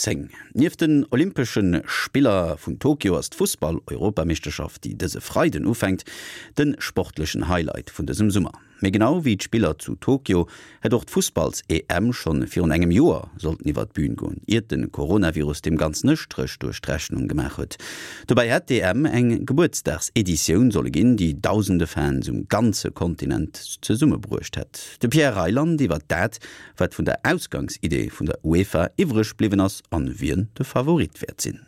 10. Nieft den Olympesche Spiller vun Tokio ass d'Fussball-Europameeschterschaft, déi dëse Freiden ufänkt, de sportlechen Highlight vun dësem Summer. Mee genau wéi d'Spiller zu Tokio hätt och d'Fussballs-EM schonn virun engem Joer sollten iwwer d'Bün goen, iert de Coronavirus deem Ganzen e Stréch duerch d'Rechnung gemaach huet. Dobäi hätt d'EM eng Gebuertsdagseditioun solle ginn, déi dausende Fans um ganze Kontinent zesummebruecht hätt. De Pierre Reyland iwwer dat, wat vun der Ausgangsidee vun der UEFA iwwreg bliwwen ass an wien de Favorit wäert sinn.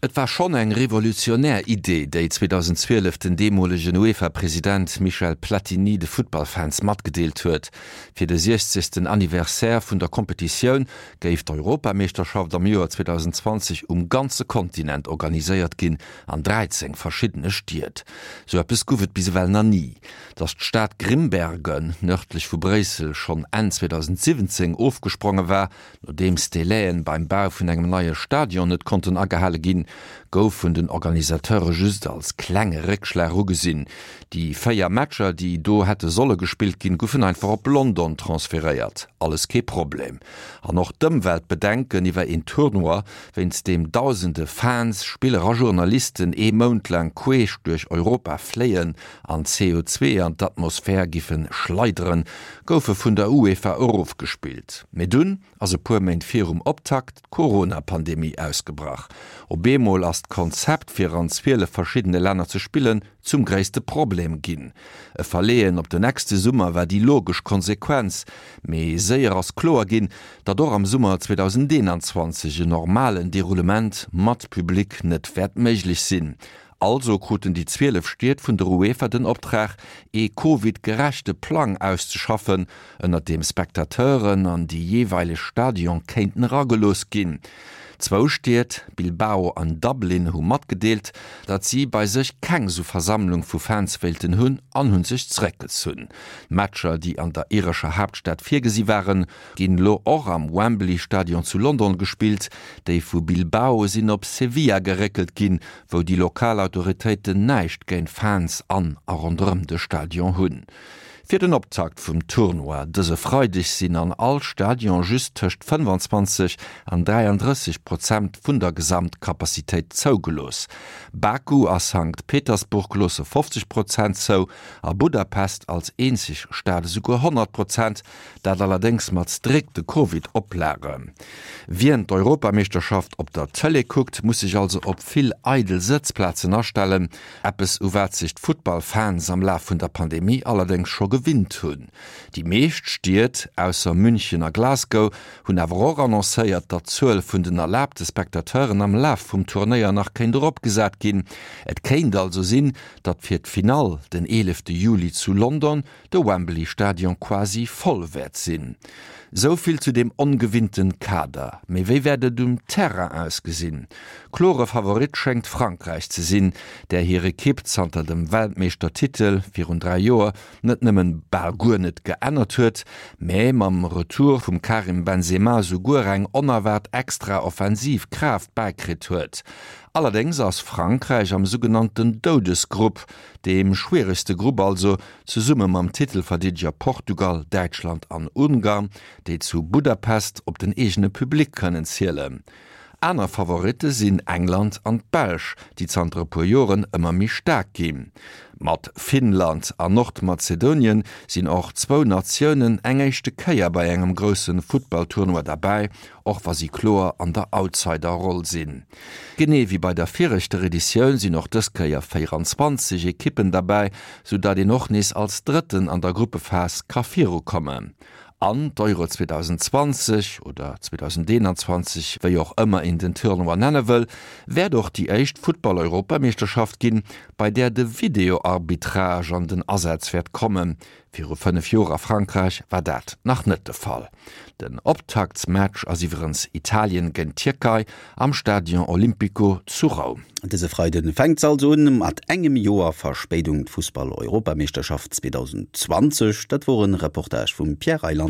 Et war schonn eng revolutionär Idee, déi 2012 den deemolegen UEFA-President Michel Platini de Futtballfans matgedeelt huet. Fir de 60. Anniversaire vun der Kompetitioun géif d'Europameeschterschaft am Joer 2020 um ganze Kontinent organiséiert ginn, an 13 verschiddene Stied. Sou eppes guff et bis ewell nach ni. Datt d'Stad Grimbergen, nërdlech vu Bréissel, schonn Enn 2017 ofgespronge war, Nodeems d'Délai'en beim Bau vun engem neie Stadion net konnten agehale ginn, gouf vun den Organisateure just als klenge Réckschlag ugesinn. Déi 4 Matcher, déi do hätte solle gespillt ginn, goufen einfach op London transferéiert. Alles kee Problem. An och d'Ëmweltbedenken iwwer een Tournoi, wéinst deem dausende Fans, Spiller a Journalisten ee Mount laang queesch duerch Europa fléien an CO2 an d'Atmosphär giffe schleideren, goufe vun der UEFA erofgespillt. Mee dunn ass e puer Méint virum Optakt d'Corona-Pandemie ausgebrach. Op eemol ass d'Konzept, fir an 12 verschiddene Länner ze spillen, zum gréisste Problem ginn. E Verleeën op de nächste Summer war déi logesch Konsequenz. Mee séier ass kloer ginn, datt och am Summer 2021 en normalen Deroulement mat Public net wäert méiglech sinn. Also kruten déi 12 Stied vun der UEFA den Optrag, ee Covid-gerechte Plang auszeschaffen, ënnert deem Spectateuren an déi jeeweileg Stadion kéinten eragelooss ginn. Zwou Stied, Bilbao an Dublin, hu matgedeelt, datt si bei sech keng sou Versammlung vu Fans wéilten hunn an hu sech zeréckgezunn. D'Matcher, déi an der irescher Haaptstad virgesi waren, Ginn lo och am Wembley Stadion zu London gespillt. Déi vu Bilbao sinn op Sevilla geréckelt ginn, wou déi lokal Autoritéiten näischt géint Fans an a ronderëm de Stadion hunn. Fir den Optakt vum Tournoi dëse Freideg sinn an all Stadion just tëscht 25 an 33 Prozent vun der Gesamtcapacitéit zougelooss. Baku a Sankt Petersburg loosse 50 Prozent zou a Budapest als eenzeg Stad esouguer 100 Prozent. Dat allerdéngs mat strikte Covid-Oplagen. Wien d'Europameeschterschaft op der Tëlee kuckt, muss sech also op vill eidel Sëtzplazen astellen. Eppes u wat sech d'Futtballfans am Laf vun der Pandemie allerdéngs scho gewinnt hunn. Déi meescht Stied, ausser München a Glasgow, hunn awer och annoncéiert, datt d'Zuel vun den erlaabte Spectateuren am Laf vum Turnéier nach kéint eropgesat ginn. Et kéint also sinn, datt fir d'Finall den 11 Juli zu London de Wembley Stadion quasi voll wäert sinn. Sou vill zu deem ongewinnten Kader. Mee wéi wäert et um Terrain ausgesinn? Klore Favorit schéngt Frankräich ze sinn, där hir Ekipp zanter dem Weltmeeschtertitel virun 3 Joer net nëmmen bal guer net geännert huet, mä mam Retour vum Karim Benzema souguer eng onerwaart extra offensiv Kraaft bäikritt huet. Allerdéngs ass Frankräich am sougenannten Doudesgrupp, Deem schwieregste Grupp also, zesumme mam Titelverdeedeger Portugal, Däitschland an Ungarn, déi zu Budapest op den eegene Public kënnen zielen. Aner Favoritte sinn England an d'Belsch, déi zanter e puer Joren ëmmer méi staark ginn. Mat Finnland an Nordmazedonien sinn och zwou Natiounen eng éischte Kéier bei engem grousse Futtballtournoi derbäi, och wa si kloer an der Outsider-Roll sinn. Genee wéi bei der viregter Editioun sinn och dës Kéier 24 Ekippen derbäi, sou dat een och nees als Drëtten an der Gruppephas ka virukommen. An d'Euro 2020, oder 2021, wéi och ëmmer een den Tournoi nenne wëll, wäert och déi éischt Futtball-Europameeschterschaft ginn, bei där de Videoarbitrage an den Asaz wäert kommen. Viru 5 Joer a Frankräich war dat nach net de Fall. Den Optaktsmatch ass iwwerens Italien géint d'Tierkei am Stadion Olimpico zu Roum. Dëse Freide fänkt se also un, mat engem Joer Verspéidung, d'Fussball-Europameeschterschaft 2020. Dat wor en Reportage vum Pierre Reyland.